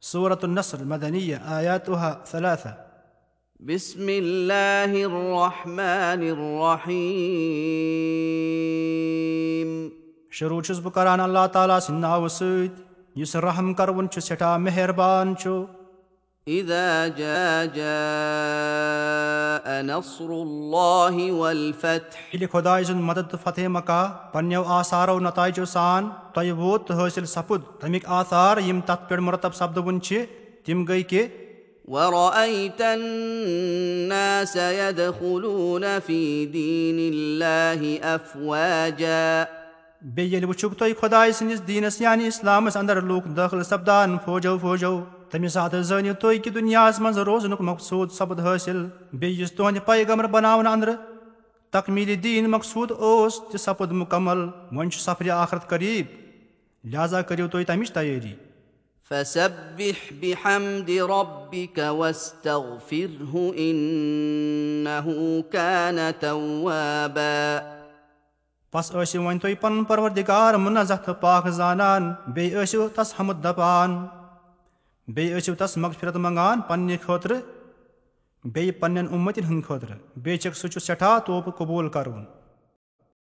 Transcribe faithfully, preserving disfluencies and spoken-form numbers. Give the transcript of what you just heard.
سورة النصر مدنية آياتها ثلاثة. بسم الله الرحمن الرحيم. شروع چھُس بہٕ کران اللہ تعالیٰ سٕنٛدِ ناوٕ سۭتۍ، یُس رحم کرون چھُ، سٮ۪ٹھاہ مہربان چھُ۔ إذا جاء جاء نصر الله والفتح. ییٚلہِ خۄداے سُنٛد مدد تہٕ فتح مکہ پننیو آثارو نتائجو سان تۄہہِ ووت تہٕ حٲصِل سپُد، تَمِکۍ آثار یِم تتھ پٮ۪ٹھ مرتب سپدوُن چھِ، تِم گٔے کہِ ورأيت الناس يدخلون في دين الله أفواجا. بیٚیہِ ییٚلہِ وٕچھُکھ تُہۍ خۄداے سٕنٛدِس دیٖنس یعنی اسلامس اندر لوٗکھ دٲخل سپدان فوجو فوجو، تَمہِ ساتہٕ زٲنِو تُہۍ کہِ دُنیاہس منٛز روزنُک مقصوٗد سپُد حٲصِل۔ بیٚیہِ یُس تُہنٛدِ پیغمبر بناونہٕ اندرٕ تکمیٖلِ دیٖن مقصوٗد اوس، تہِ سپُد مُکمل۔ وۄنۍ چھُ سفرِ آخرت قریب، لہذا کٔرِو تُہۍ تَمِچ تیٲری۔ فسبح بحمد ربك واستغفره إنه كان توابا. پس ٲسِو وۄنۍ تُہۍ پنُن پروردگار منزہ تہٕ پاک زانان، بیٚیہِ ٲسِو تس حمد دپان، بیٚیہِ ٲسِو تس مغفرت منگان پننہِ خٲطرٕ، بیٚیہِ پننٮ۪ن اُمتن ہٕنٛدِ خٲطرٕ۔ بے شک سُہ چھُ سٮ۪ٹھاہ توبہٕ قبوٗل کرُن۔